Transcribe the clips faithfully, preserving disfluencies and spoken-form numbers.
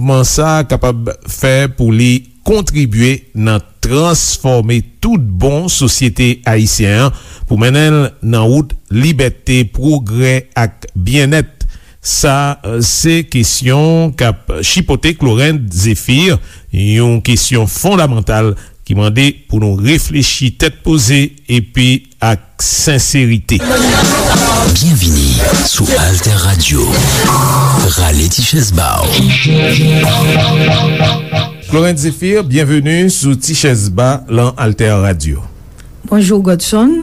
Mouvman sa a kapab fè pou li kontribye nan transfòme tout bon sosyete ayisyen an pou mennen l nan wout libète, pwogrè ak byennèt. Sa, eh, se kesyon k ap chipote Clorinde Zéphir, yon kesyon fondamantal ki mande pou nou reflechi tèt poze epi ak senserite. Byenvini sou Alter Radio. Rale ti chèz ba w. Clorinde Zéphir, byenveni sou Ti Chèz Ba lan Alter Radio. Bonjou, Godson.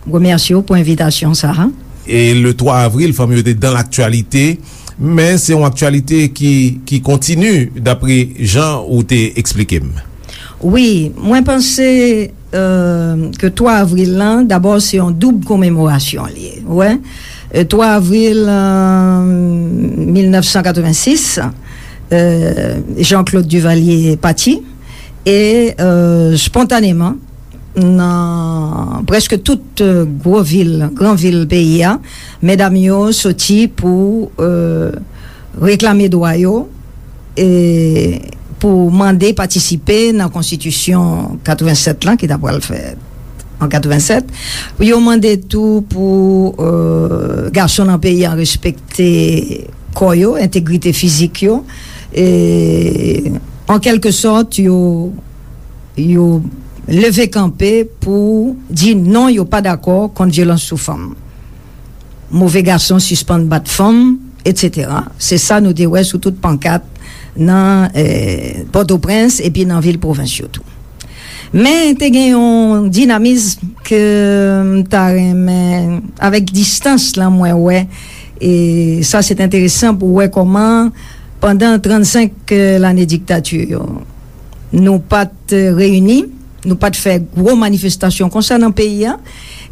Remèsye w pou envitasyon sa a. E le twa avril, fanm yo te dan laktyalite, men se yon aktyalite ki, ki kontini, dapre jan ou te eksplike m. Wi, mwen panse, euh, ke twa avril lan, dabò, se yon doub komemorasyon li ye, ou wè. Euh, twa avril, euh, mil nèf san katrevensis, euh, Jean-Claude Duvalier pati, e, euh, spontaneman, nan prèske tout, euh, gwo vil, gran vil peyi a, medam yo soti pou, euh, reklame dwa yo, e pou mande patisipe nan konstitisyon katrevensèt lan, ki ta pral fèt an katrevensèt. Yo mande tou pou, euh, gason nan peyi an respekte kò yo, entegrite fizik yo, e an kèlke sòt, yo, yo leve kanpe pou di non, yo pa dakò kont vyolans sou fanm, move gason sispann bat fanm, etsetera. Se sa nou te wè sou tout pankat nan, eh, Pòtoprens epi nan vil pwovens yo tou. Men te gen yon dinamis ke m ta renmen, avèk distans lan, mwen wè, e sa se te enteresan pou wè kòman pandan trannsenk lane diktati yo, nou pa t reyini, nou pa t fè gwo manifestasyon konsa nan peyi a,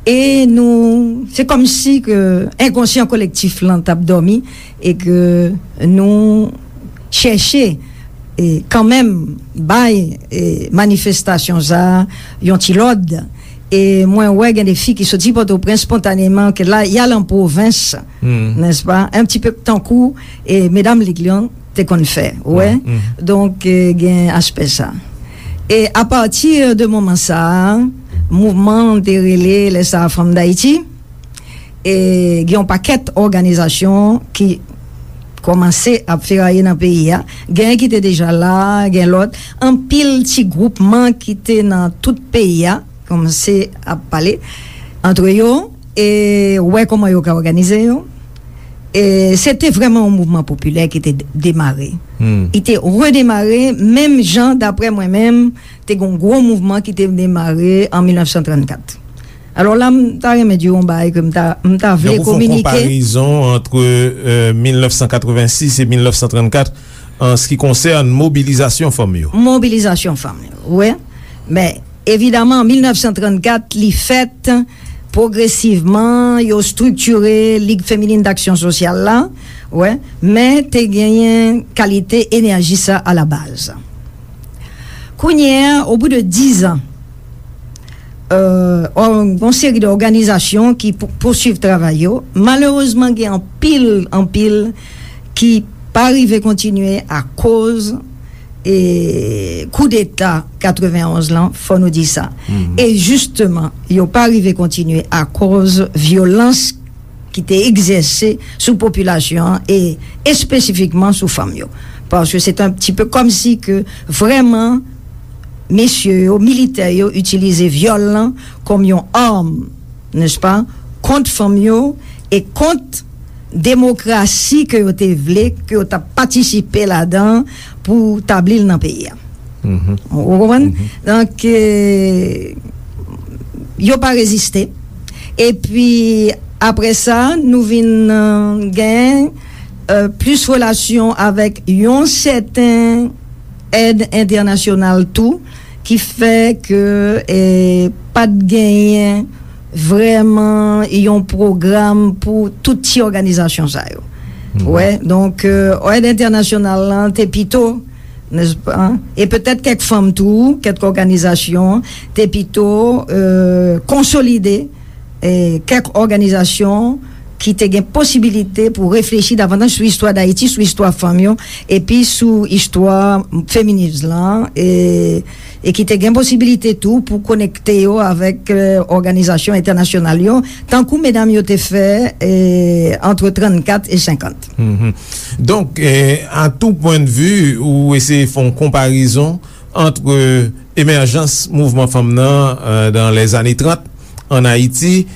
e nou, se kòmsi ke enkonsyan kolektif lan t ap dòmi, e ke nou chèche, e, kanmenm bay, e, manifestasyon sa a yon ti lòd. E mwen wè gen de fi ki soti Pòtoprens spontaneman, ke la, y al an pwovens, nèspa, un petit peu tankou, e, medam Lig lan te konn fè, ou wè. Donk, e, gen aspè sa. E apati de moman sa a, mouvman an te rele lè sa a Fanm Dayiti. E gen yon pakèt òganizasyon ki kòmanse ap feraye nan peyi a. Gen ki te deja la, gen lòt. Anpil ti gwoupman ki te nan tout peyi a kòmanse ap pale antre yo e wè kòman yo ka òganize yo. E se te vrèman yon mouvman popilè ki te de-, demare. Li te redemare menm jan, daprè mwen menm, te gen yon gwo mouvman ki te demare an mil nèf san trannkat. Alò la, m ta renmen di w yon bagay ke m ta, m ta vle kominike. Donk, ou fè yon konparezon ant, euh, mil nèf san katrevensis e mil nèf san trannkat an se ki konsène mobilizasyon fanm yo. Mobilizasyon fanm yo, wi. Men, evidaman, an mil nèf san trannkat, li fèt pwogresivman, yo estriktire Lig Feminin Daksyon Sosyal la, wi, men te genyen kalite enèji sa alabaz. Kounye a, au bout de dix ans, euh, ò-, yon seri de òganizasyon ki pou-, pousuiv travay yo. Malerezman, gen anpil, anpil ki pa rive kontinye akoz, e, koudeta katrevenonz lan, fò nou di sa. E jisteman, yo pa rive kontinye akoz vyolans ki te egzèse sou popilasyon an e espesifikman sou fanm yo. Paske se te yon ti pe kòmsi ke vrèman mesye yo, militè yo, itilize vyòl lan kòm yon arm, nèspa, kont fanm yo e kont demokrasi ke yo te vle, ke yo t ap patisipe ladan pou tabli l nan peyi a. Ou konprann? Donk, e, yo pa reziste. Epi, apre sa, nou vin, e, gen, e, plis relasyon avèk yon sèten èd entènasyonal tou, ki fè ke, e, pa t genyen vrèman yon pwogram pou tout ti òganizasyon sa yo. Wè, donk, e, èd entènasyonal lan te pito, nèspa? E petèt kèk fanm tou, kèk òganizasyon, te pito, e, konsolide, e, kèk òganizasyon, ki te gen posibilite pou reflechi davantaj sou istwa Dayiti, sou istwa fanm yo, epi sou istwa feminism lan, e, e ki te gen posibilite tou pou konekte yo avèk, e, òganizasyon entènasyonal yo, tankou medam yo te fè, e, ant trannkat e senkant. Mhm. Donk, e, a tou pwennvi, ou eseye fè yon konparezon ant emèjans mouvman fanm nan, e, dans les années trente an Ayiti,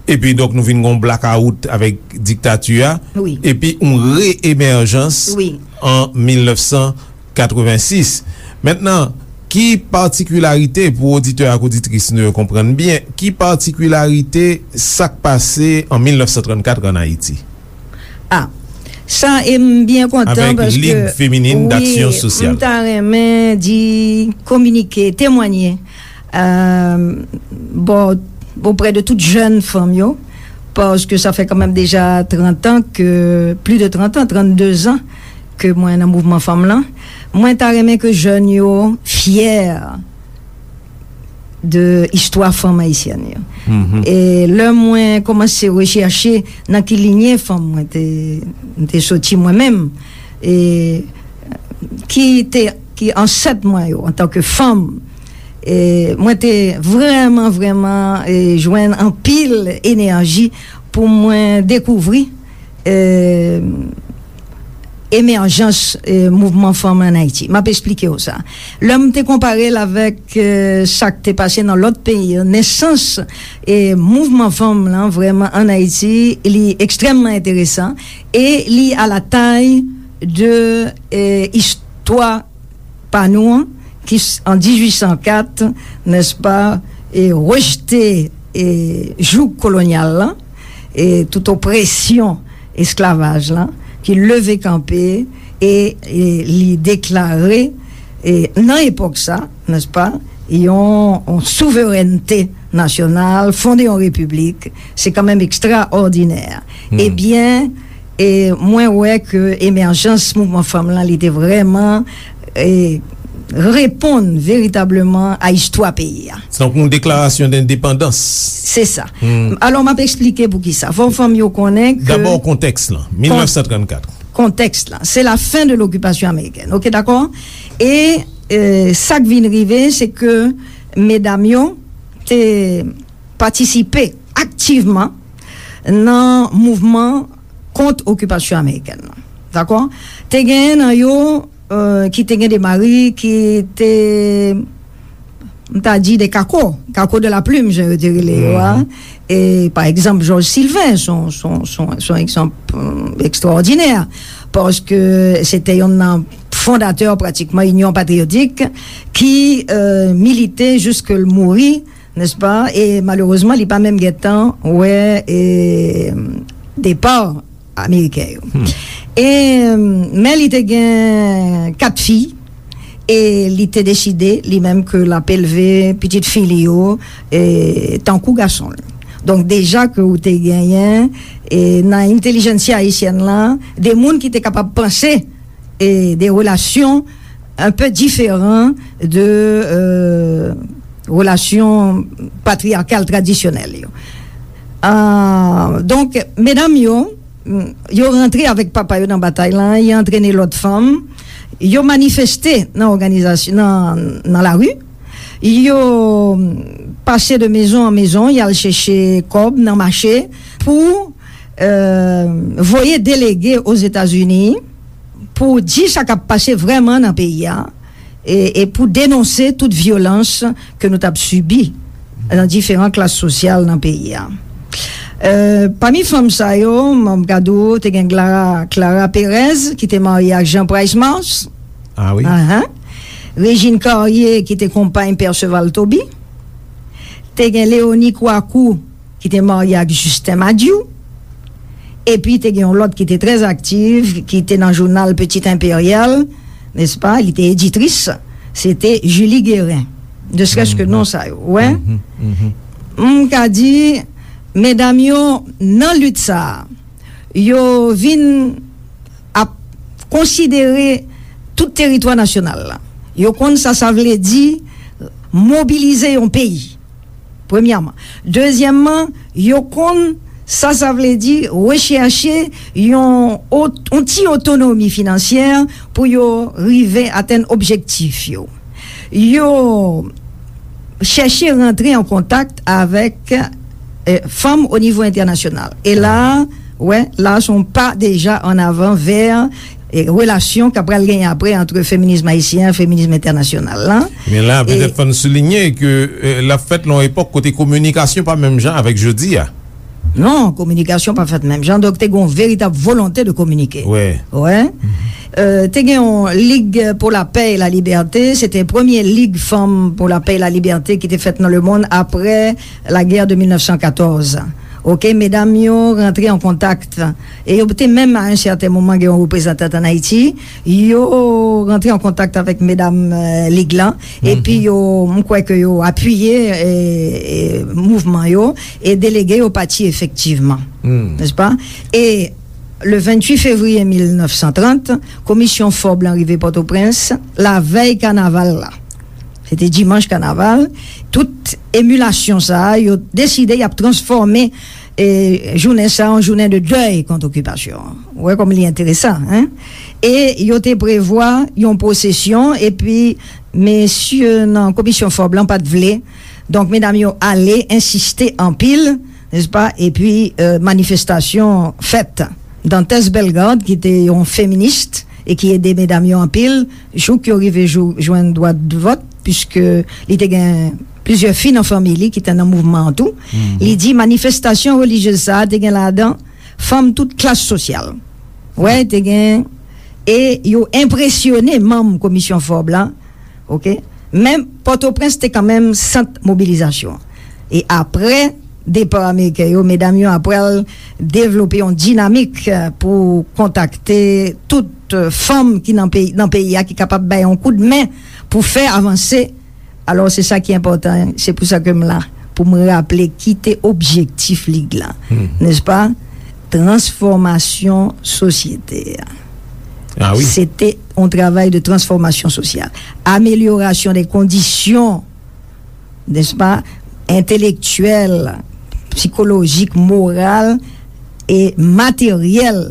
epi donk nou vin gon blakawout avèk diktati a, Wi. epi yon re-emèjans Wi. an mil nèf san katrevensis. Mentnan, ki patikilarite, pou oditè ak oditris nou yo konprann byen, ki patikilarite sa k pase an mil nèf san trannkat an Ayiti? Ah, sa, e m byen kontan Avèk paske Ligue Féminine wi, d'Action Sociale. M ta renmen di, kominike, temwanye, euh, bon, oprè de tout jèn fanm yo, paske sa fè kanmenm deja trant an ke, plis de trant an, trannde zan ke mwen nan mouvman fanm lan. Mwen ta renmen ke jèn yo fyè de istwa fanm ayisyèn yo. Mhm. E lè mwen kòmanse rechèche nan ki linye fanm mwen te, mwen te soti mwen menm, e ki te, ki ansèt mwen yo antanke fanm, e mwen te vrèman, vrèman, e jwenn anpil enèji pou mwen dekouvri, e, emèjans, e, mouvman fanm an Ayiti. M ap esplike w sa. Lè m te konpare l avèk, e, sa k te pase nan lòt peyi yo, nesans, e, mouvman fanm lan vrèman an Ayiti, li ekstrèmman enteresan e li a la tay de, e, istwa pa nou an, ki s-, an dizuit san kat, nèspa, e rejte, e jouk kolonyal lan, e tout opresyon esklavaj lan, ki leve kanpe e, e li deklare, e nan epòk sa, nèspa, yon, yon souverènte nasyonal, fonde yon repiblik, se kanmenm ekstraòdinè. Hmm. Ebyen, e mwen wè ke emèjans mouvman fanm lan, li te vrèman, e, reponn veritableman a istwa peyi a. Se tankou yon deklarasyon dendepandans. Se sa. Hmm. Alò, m ap eksplike poukisa. Fò fanm yo konnen ke Dabò, kontèks lan, mil nèf san trannkat. Kontèks lan, se la fen de lokipasyon amerikèn. Oke, dakò? E, e sa k vin rive, se ke medam yo te patisipe aktivman nan mouvman kont okipasyon amerikèn lan. Dakò? Te genyen nan yo, e, ki te gen de mari ki te, m ta di, de kako, kako de la plume, jan yo te rele yo a. Mhm. E, pa egzanp, Jòj Silven, se yon, se yon, se yon, se yon egzanp, e, ekstraòdinè, paske se te yonn nan fondatè, pratikman, Inyon Patriyotik, ki, e, milite jiske l mouri, nèspa? E malerezman, li pa menm gentan wè, e, depa ameriken yo. Hmm. E, men li te gen kat fi, e li te deside, li menm, ke l ap elve pitit fi li yo, e, tankou gason l. Donk, deja ke ou te genyen, e, nan entèlijensya ayisyèn lan, de moun ki te kapab panse, e, de relasyon un peu différent de, euh, relasyon patriyakal tradisyonèl yo. Ah, donk, medam yo, yo rantre avèk papa yo nan batay lan, yo antrene lòt fanm, yo manifeste nan òganizasyon, nan, nan lari, yo pase de maison en maison, y al chèche kòb nan mache pou, euh, voye delege Ozetazini, pou di sa k ap pase vrèman nan peyi a, e, e pou denonse tout vyolans ke nou t ap sibi nan diferan klas sosyal nan peyi a. E, pami fanm sa yo, m ap gade w, te gen Clara, Clara Perez, ki te marye ak Jean Price Mars. Ah wi. Ahan. Régine Carrier, ki te konpay Perceval Toby. Te gen Léonie Kouakou, ki te marye ak Justin Madiou. Epi te gen yon lòt ki te trè aktiv, ki te nan jounal Petit Impérial, nèspa? Li te editris. Se te Julie Guérin. Ne serait-ce que non sa yo, wè? Mhm, mhm. M ka di, medam yo, nan lit sa a, yo vin ap konsidere tout teritwa nasyonal la. Yo konn sa sa vle di mobilize yon peyi. Premyèman. Dezyèmman, yo konn Sa, sa vle di rechèche yon ot-, yon ti otonomi finansyè pou yo rive atenn objektif yo. Yo chèche rantre an kontak avèk, eh, fanm o nivo entènasyonal. E la, wè, la, se yon pa deja an avan vè, eh, relasyon k ap pral genyen apre ant feminism ayisyen, feminism entènasyonal la. Men la, petèt fò n soulinye ke, eh, l ap fèt nan yon epòk kote kominikasyon pa menm jan avèk jodi a. Non, kominikasyon pa fèt menm jan, donk te gen yon veritab volonte de kominike. Wè. Wè. Euh, te gen yon Lig pour la Paix et la Liberté, se te premye Lig Fanm pou la Paix et la Liberté ki te fèt nan lemonn apre lagè de mil nèf san katòz. Oke, medam yo rantre an kontak. E yo te menm, a yon sèten moman, gen yon reprezantant ann Ayiti. Yo rantre an kontak avèk medam, euh, Lig lan. Epi yo, m kwè ke yo apiye, eh, eh, mouvman yo e delege yo pati efektivman. Nèspa? E le venntuit fevriye mil nèf san trant, Komisyon Forbes lan rive Pòtoprens, lavèy kanaval la. Se te dimanch kanaval. Tout emilasyon sa a, yo deside y ap transfòme, eh, jounen sa a an jounen de dèy kont okipasyon an. Ou wè kòman li enteresan, en? E yo te prevwa yon pwosesyon, epi mesye nan Komisyon Forbes lan pa t vle. Donk, medam yo ale, ensiste anpil, nèspa? Epi, euh, manifestasyon fèt. Dantès Bellegarde, ki te yon feminis e ki ede medam yo anpil, jouk yo rive jou, jwenn dwa de vòt, piske li te gen plizyè fi nan fanmi li ki te nan mouvman an tou. Li di manifestasyon relijyez sa a te gen ladan fanm tout klas sosyal. Wè, te gen, e yo enpresyone manm Komisyon Forbes la, oke? Men Pòtoprens te kanmenm sant mobilizasyon. E apre depa Ameriken yo, medam yo ap pral devlope yon dinamik, eh, pou kontakte tout, eh, fanm ki nan peyi, nan peyi a ki kapab bay yon koudmen pou fè avanse. Alò, se sa ki enpòtan, se pou sa ke m la, pou m raple ki te objektif Lig la, nèspa? Transfòmasyon sosyete a. Ah wi. Se te yon travay de transfòmasyon sosyal. Amelyorasyon de kondisyon, nèspa, entelektyèl, sikolojik, moral e materyèl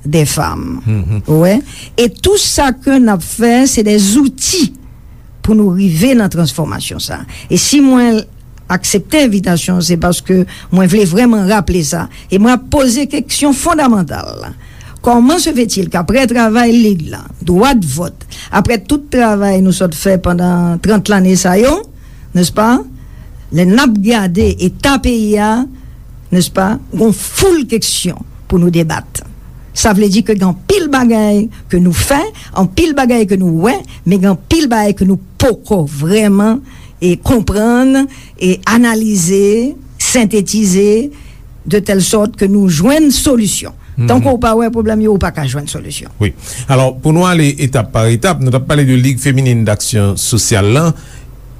de fanm. Ou wè? E tou sa ke n ap fè, se de zouti pou nou rive nan transfòmasyon sa. E si mwen aksepte envitasyon, se paske mwen vle vrèman raple sa. E mwen ap poze keksyon fondamantal la. Comment se fait-il qu'après travay Lig la, dwa de vòt, apre tout travay nou sot fè pandan trant lane sa yo, nèspa, lè n ap gade eta peyi a, nèspa, gon foul keksyon pou nou debat. Sa vle di ke gen anpil bagay ke nou fè, anpil bagay ke nou wè, men gen anpil bagay ke nou poko vrèman, e, konprann, e, analize, sentetize, de tèl sòt ke nou jwenn solisyon. Tanke w pa wè pwoblèm yo, ou pa ka jwenn solisyon. Wi. Alò, pou nou ale etap pa etap, nou t ap pale de Lig Feminin Daksyon Sosyal lan.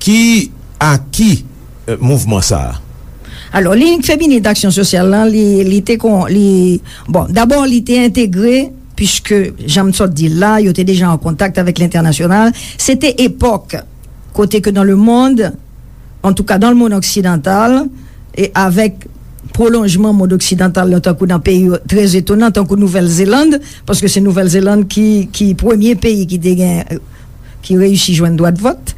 Ki aki, eh, mouvman sa a? Alò, Lig Feminin Daksyon Sosyal lan, li, li te kon, li, bon, dabò, li te entegre, piske, jan m sot di l la, yo te deja an kontak avèk lentènasyonal. Se te epòk kote ke dans le monde, en tout cas dans le monde occidental, e avèk pwolonjman mond oksidantal la, tankou nan peyi trè etonan, tankou Nouvèl Zeland, paske se Nouvèl Zeland ki, ki premye peyi ki te gen, ki reyisi jwenn dwa de vòt.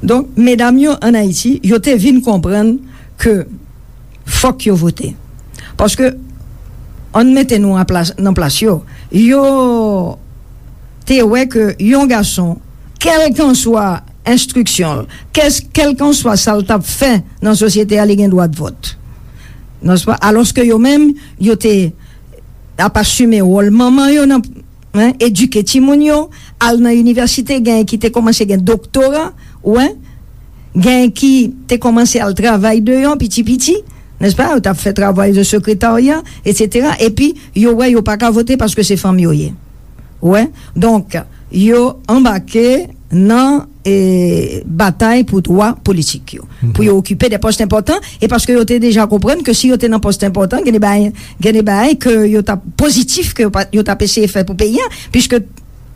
Donk, medam yo ann Ayiti, yo te vin konprann ke fòk yo vote. Paske, ann mete nou an plas, nan plas yo, yo te wè ke yon gason, kèlkanswa enstriksyon l, kès-, kèlkanswa sa l t ap fè nan sosyete a, li gen dwa de vòt. Nèspa? Alòske yo menm, yo te ap asime wòl manman yo nan, en, edike timoun yo, al nan inivèsite, genyen ki te kòmanse gen doktora, ou wè, genyen ki te kòmanse al travay deyò piti piti, nèspa? Yo t ap fè travay de sekretarya, etsetera. Epi, yo wè yo pa ka vote paske se fanm yo ye. Ou wè? Donk, yo anbake nan, e, batay pou dwa politik yo, pou yo okipe de pòs enpòtan, e paske yo te deja konprann ke si yo te nan pòs enpòtan, gen de bagay, gen de bagay ke yo t ap pozitif, ke yo pa, yo t ap eseye fè pou peyi a, piske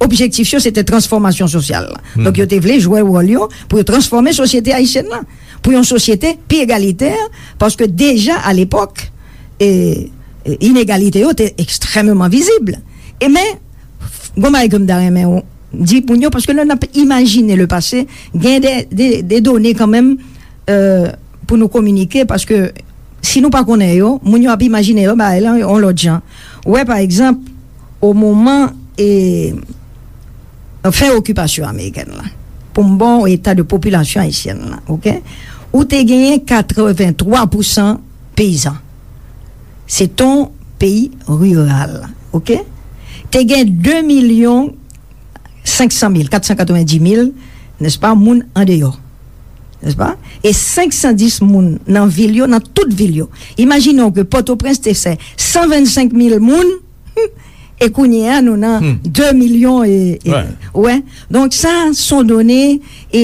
objektif yo se te transfòmasyon sosyal la. Donk, yo te vle jwe wòl yo pou yo transfòme sosyete ayisyèn la, pou yon sosyete pi egalitè, paske deja alepòk, e, e, inegalite yo te ekstrèmeman vizib. E men, gon bagay ke m ta renmen di moun yo, paske lè n ap imajine le pase, gen de, de, de done kanmenm, e, pou nou kominike, paske si nou pa konnen yo, moun yo ap imajine yo bagay lan yon lòt jan. Ou wè, pa egzanp, o moman, e, fen okipasyon amerikèn lan, pou m ba w eta de popilasyon ayisyèn lan, oke? Ou te genyen katrevenntwa pousan peyizan. Se te yon peyi riral, oke? Te gen de milyon senk san mil, kat san katrevendis mil, nèspa, moun andeyò, nèspa? E senk san dis moun nan vil yo, nan tout vil yo. Imajine w ke Pòtoprens te fè san vennsenk mil moun, e kounye a, nou nan de milyon e, e, wè. Donk, sa, se yon done, e,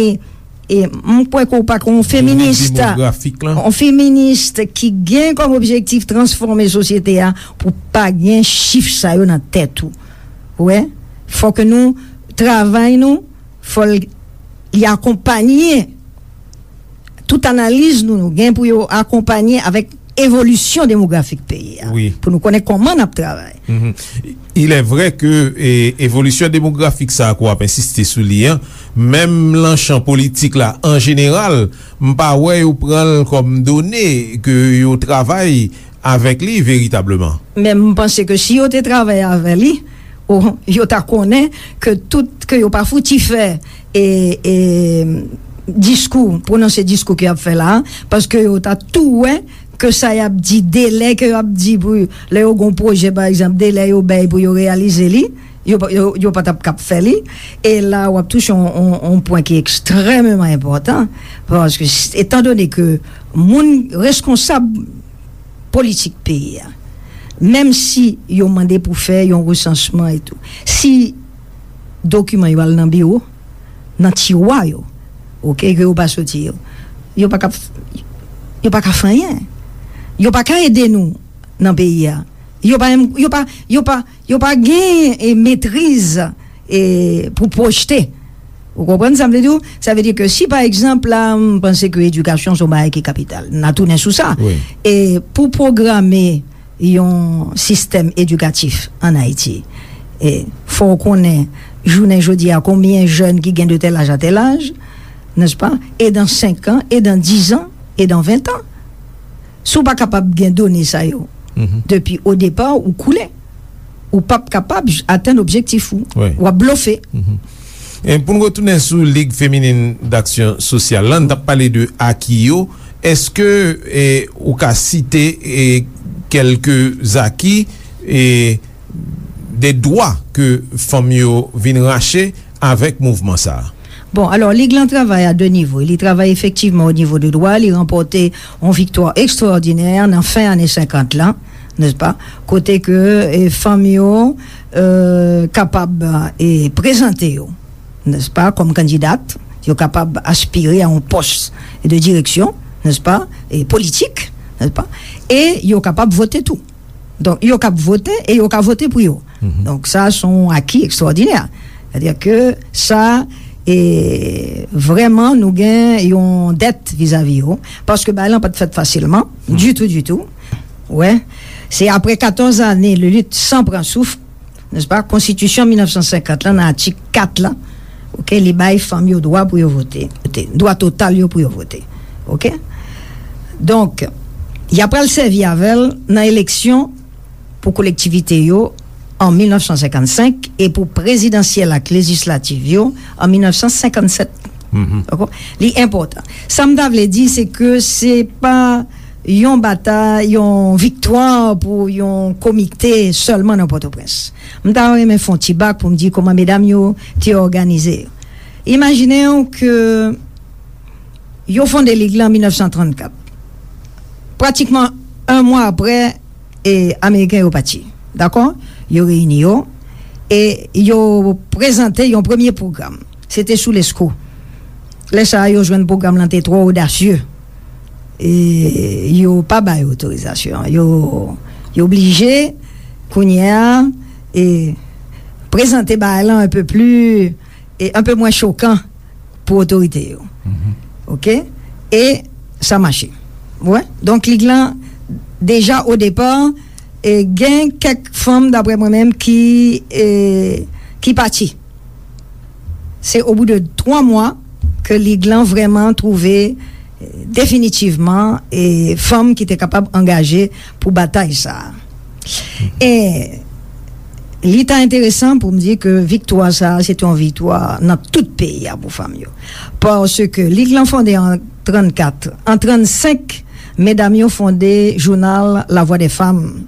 e m kwè ke w pa ka yon feminis, yon feminis ki gen kòm objektif transfòme sosyete a pou pa gen chif sa yo nan tèt ou. Ou wè? Fò ke nou travay nou, fò l, li akonpanye tout analiz nou, nou gen pou yo akonpanye avèk evolisyon demografik peyi a, pou nou konnen kòman n ap travay. Il est vrai que, e, evolisyon demografik sa a ke w ap ensiste sou li an, menm nan chan politik la, an jeneral, m pa wè yo pran l kòm done ke yo travay avèk li veritableman. Men m panse ke si yo te travay avè li, o, yo ta konnen ke tout, ke yo pa fouti fè, e, e, diskou, pwononse diskou ke y ap fè la a, paske yo ta tou wè ke sa y ap di, delè ke y ap di pou, lè yo gon pwojè, pa egzanp, delè yo bay pou yo reyalize li, yo pa, yo, yo pa t ap kab fè li. E la, w ap touche yon, yon, yon pwen ki ekstrèmeman enpòtan, paske, etandone ke moun reskonsab politik peyi a, menm si yo mande pou fè yon resansman e tou, si dokiman yo al nan biwo, nan tiwa yo, oke, ke yo pa soti yo, yo pa ka, yo pa ka fè anyen. Yo pa ka ede nou nan peyi a. Yo pa menm, yo pa, yo pa, yo pa gen, e, metriz, e, pou pwojte. Ou konprann sa m vle di w? Sa vle di ke si, pa egzanp, la, m panse ke edikasyon se yon bagay ki kapital. N a tounen sou sa. E pou pwograme yon sistèm edikatif ann Ayiti, e fò w konnen, jounen jodi a, konbyen jèn ki gen de tèl aj a tèl aj, nèspa? E dan senk an, e dan diz an, e dan ven an. Si w pa kapab gen done sa yo depi o depa, ou koule. Ou p ap kapab j-, atenn objektif ou. W ap blofe. E pou n retounen sou Lig Feminin Daksyon Sosyal la, n t ap pale de aki yo. Èske, e, ou ka site, e, kèlke aki, e, de dwa ke fanm yo vin rache avèk mouvman sa a? Bon, alò, Lig lan travay a de nivo. Li travay efektivman o nivo de dwa, li ranpòte yon viktwa ekstraòdinè nan fen ane senkant lan, nèspa? Kote ke, e, fanm yo, e, kapab, e, prezante yo, nèspa, kòm kandidat, yo kapab aspire a yon pòs de direksyon, nèspa, e politik, nèspa, e yo kapab vote tou. Donk, yo kab vote e yo ka vote pou yo. Donk, sa, se yon aki ekstraòdinè. Sètadi ke sa, e, vrèman, nou gen yon dèt vizavi yo, paske bagay lan pa t fèt fasilman, ditou, ditou. Wè, se apre katòz ane de lit san pran souf, nèspa, Konstitisyon mil nèf san senkant lan, nan atik kat lan, oke, li bay fanm yo dwa pou yo vote, dwa total yo pou yo vote. Oke? Donk, y ap pral sèvi avè l nan eleksyon pou kolektivite yo an mil nèf san senkannsenk e pou prezidansyèl ak lejislativ yo an mil nèf san senkannsèt. Dakò? Li enpòtan. Sa m ta vle di, se ke se pa yon batay, yon viktwa pou yon komite sèlman nan Pòtoprens. M ta renmen fè yon ti bak pou m di kòman medam yo te òganize yo. Imajine w ke yo fonde lig lan an mil nèf san trannkat. Pratikman, yon mwa apre, e, Ameriken yo pati. Dakò? Yo reyini yo e yo prezante yon premye pwogram. Se te sou Lesko. Lè sa a, yo jwenn pwogram lan te twò odasye. E yo pa bay otorizasyon. Yo, yo blije, kounye a, e prezante bagay lan un peu plus, e un peu moins choquant pou otorite yo. Oke? E sa mache. Ou wè? Donk, lig lan Deja o depa, e, gen kèk fanm, daprè mwen menm, ki, e, ki pati. Se au bout de twa mwa ke Lig lan vrèman twouve, e, definitivman, e, fanm ki te kapab angaje pou batay sa a. E li ta enteresan pou m di ke viktwa sa a, se te yon viktwa nan tout peyi a pou fanm yo. Paske Lig lan fonde an trannkat, an trannsenk, medam yo fonde jounal La Voix des Femmes,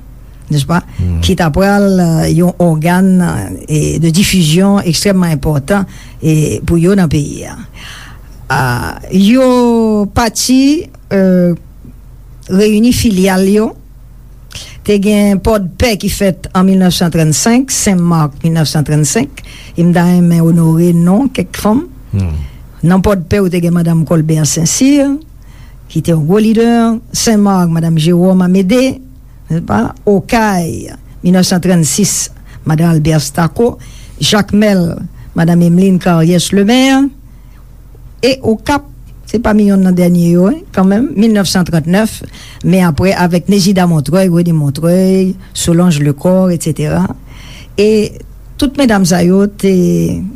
n'est-ce pas? Ki ta pral, euh, yon ògàn, euh, de difizyon ekstrèmman enpòtan, e, pou yo nan peyi a. Ah, yo pati, euh, reyini filyal yo. Te gen Pòdpè ki fèt an mil nèf san trannsenk, Sen Mak mil nèf san trannsenk, e m ta renmen onore non kèk fanm. Nan Pòdpè, ou te gen Madanm Colbert Saint-Cyr, ki te yon gwo lidè, Sen Mak, Madanm Jérôme Amédée, n'est-ce pas? Okay, mil nèf san trannsis, Madanm Albert Staco, Jakmèl, Madanm Emeline Carriès Lemaire, e Okap, se pami yonn nan dènye yo, wi, kanmenm, mil nèf san trannèf, men apre avèk Nézida Montreuil, Rene Montreuil, Solange Lecor, etsetera. E tout medam sa yo te,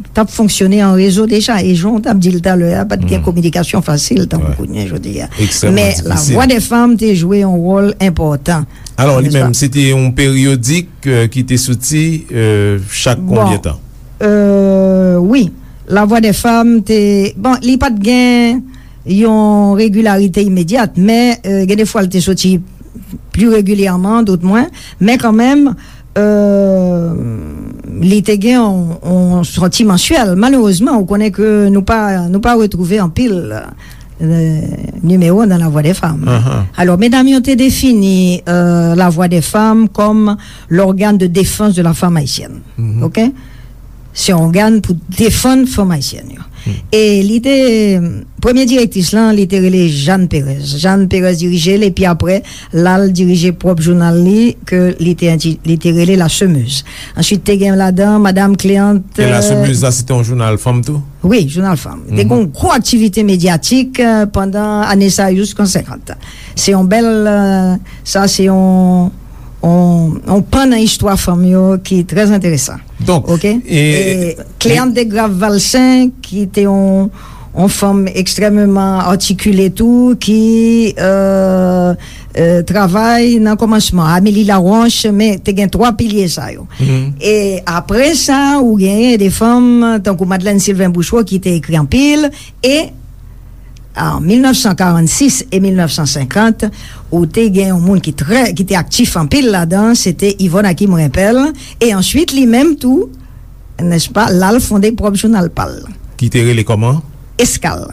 t ap fonksyone an rezo deja, e jan w t ap di l talè a, pa t gen kominikasyon fasil tankou kounye a jodi a. Men La Voix des Femmes te jwe yon wòl enpòtan. Alò, li menm, se te yon peryodik, euh, ki te soti, euh, chak konbyen tan? Euh, wi. La Voix des Femmes te, bon, li pa t gen yon regilarite imedyat, men, euh, gen de fwa l te soti pli regilyèman, dòt mwen, men kanmenm, euh, li te gen yon, yon sòti mansyèl. Malerezman, ou konnen ke nou pa, nou pa retwouve anpil, euh, nimewo nan La Voix des Femmes. Alò, medam yo te defini, euh, La Voix des Femmes kòm l'organe de défense de la femme haïtienne. OK? Se yon ògàn pou defann fanm ayisyèn yo. E li te, premye direktris lan, li te rele Jeanne Pérez. Jeanne Pérez dirije l, epi apre, l al dirije pwòp jounal li, ke li te, li te rele La Semeuse. Answit, te gen ladan Madanm Cléante. E La Semeuse la, se te yon jounal fanm tou? Wi, jounal fanm. Te gen yon gwo aktivite medyatik, euh, pandan ane sa yo jiskan senkant. Se yon bèl, euh, sa se yon, yon, yon pan nan istwa fanm yo ki trè enteresan. Donk, OK? E, e Cléante Desgraves Valcin, ki te yon, yon fanm ekstrèmeman atikile tou, ki, euh, euh, travay nan kòmansman. Amélie Laroche, men te gen twa pilye sa yo. E apre sa, ou genyen de fanm tankou Madeleine Sylvain Bouchereau ki te ekri anpil, e an mil nèf san karannsis e mil nèf san senkant, ou te gen yon moun ki trè, ki te aktif anpil ladan, se te Yvonne Hakim Rimpel, e answit, li menm tou, nèspa, l al fonde pwòp jounal pa l. Ki te rele kòman? Eskal.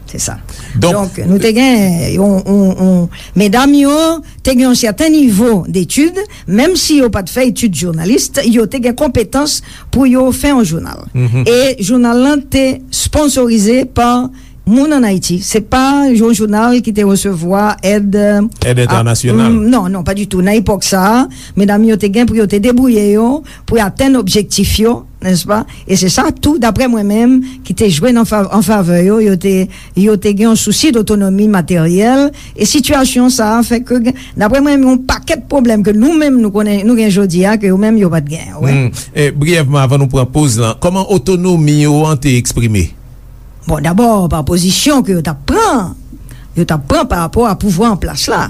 Se sa. Donk, donk, nou te gen yon, yon, yon, medam yo te gen yon sèten nivo detid, menm si yo pa t fè etid jounalis, yo te gen konpetans pou yo fè yon jounal. E jounal lan te sponsorize pa moun ann Ayiti. Se pa yon jounal ki te resevwa èd, èd entènasyonal. Non, non, pa ditou. Nan epòk sa a, medam yo te gen pou yo te debouye yo, pou yo atenn objektif yo, nèspa? E se sa tou, daprè mwen menm, ki te jwe nan fa-, an favè yo, yo te, yo te gen yon sousi dotonomi materyèl, e sitiyasyon sa a fè ke gen, daprè mwen, yon pakèt pwoblèm ke nou menm nou konnen, nou gen jodi a, ke yo menm yo pa t gen, wè. E, briyèvman, avan nou pran poz lan, kòman otonomi yo an te eksprime? Bon, dabò, pa pozisyon ke yo t ap pran, yo t ap pran pa rapò a pouvwa an plas la.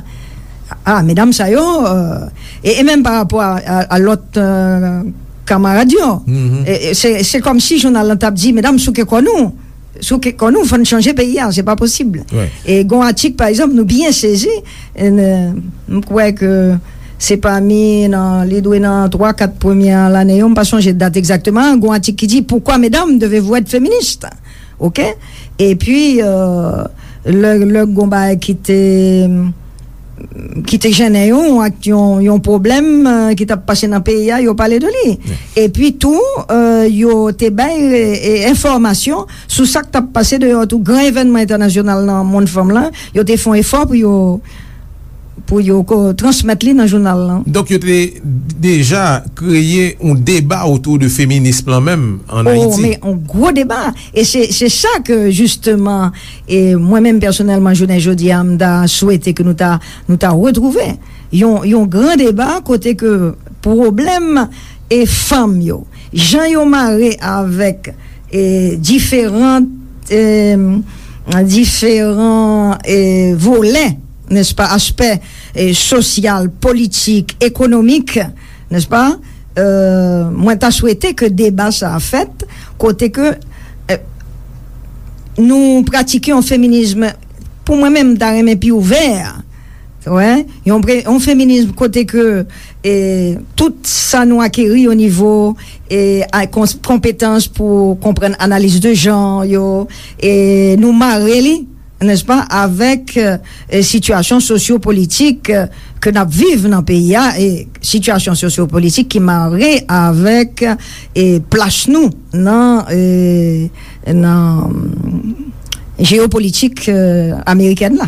A, medam sa yo, euh, e, e menm pa rapò a, a, a lòt, euh, kamarad yo. E, e, se, se kòmsi jounal lan t ap di, medam, souke kò nou. Souke kò nou, fò n chanje peyi a, se pa posib. E gon atik, pa egzanp, nou byen sezi, e, n-, m kwè ke se pami nan, li dwe nan twa, kat premyè lane yo, m pa sonje dat egzakteman, gon atik ki di, pourquoi, mesdames, devez-vous être féministes? OK? Epi, euh, lè, lè gon bagay ki te, ki te jennen yo, ak yon, yon pwoblèm, euh, ki t ap pase nan peyi a, yo pale de li. Epi tou, euh, yo te bay, e, enfòmasyon sou sa k t ap pase deyò tou. Gran evènman entènasyonal nan mond fanm lan, yo te fè yon efò pou yo, pou yo ko-, transmèt li nan jounal lan. Donk, yo te deja kreye yon deba otou de feminism lan menm ann Ayiti. Oh, men yon gwo deba. E se, se sa ke, jisteman, e mwen menm pèsonèlman, jounen jodi a, m ta swete ke nou ta, nou ta retwouve yon, yon gran deba kote ke pwoblèm e fanm yo, jan yo mare avèk, e, diferan, e, diferan, e, volè, nèspa, aspè, e, sosyal, politik, ekonomik, nèspa? E, mwen ta swete ke deba sa a fèt, kote ke, e, nou pratike yon feminism, pou mwen menm, m ta renmen pi ouvè. Wè, yon pre-, yon feminism kote ke, e, tout sa nou akeri o nivo, e, a, kons-, konpetans pou konprann analiz de jan yo, e nou mare li, nèspa, avèk, e, sitiyasyon sosyopolitik, e, ke n ap viv nan peyi a, e sitiyasyon sosyopolitik ki mare avèk, e, plas nou nan, e, nan, mm, jeyopolitik, e, amerikèn la.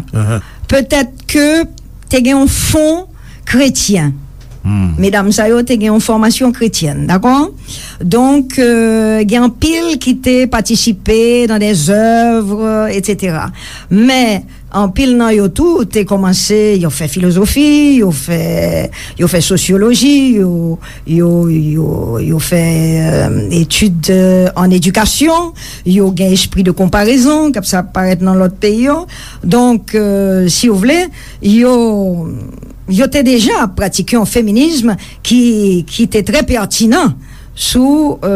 Petèt ke te gen yon fon kretyen. Medam sa yo te gen yon fòmasyon kretyèn, dakò? Donk, e, gen anpil ki te patisipe nan dè zèv, etsetera. Men, anpil nan yo tou te kòmanse, yo fè filozofi, yo fè, yo fè sosyoloji, yo, yo, yo, yo fè, e, etid, e, an edikasyon, yo gen espri de konparezon, k ap sa parèt nan lòt peyi yo. Donk, e, si w vle, yo, yo te deja pratike yon feminism ki, ki te trè pètinan sou, e,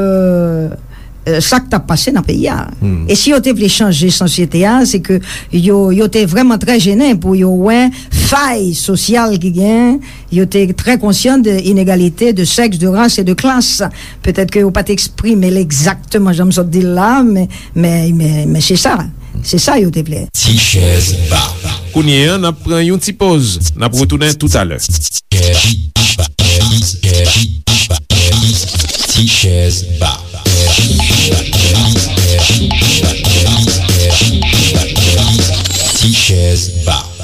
e, sa k t ap pase nan peyi a. E si yo te vle chanje sosyete a, se ke yo, yo te vrèman trè jennen pou yo wè fay sosyal ki gen, yo te trè konsyan de inegalite de sèks, de ras e de klas. Petèt ke yo pa t eksprime l egzakteman jan m sot di l la, men, men, men, men se sa. Se sa yo te vle. Ti chèz ba. Kounye a, n ap pran yon ti poz. N ap retounen toutalè. Ti chèz ba. Ti chèz ba.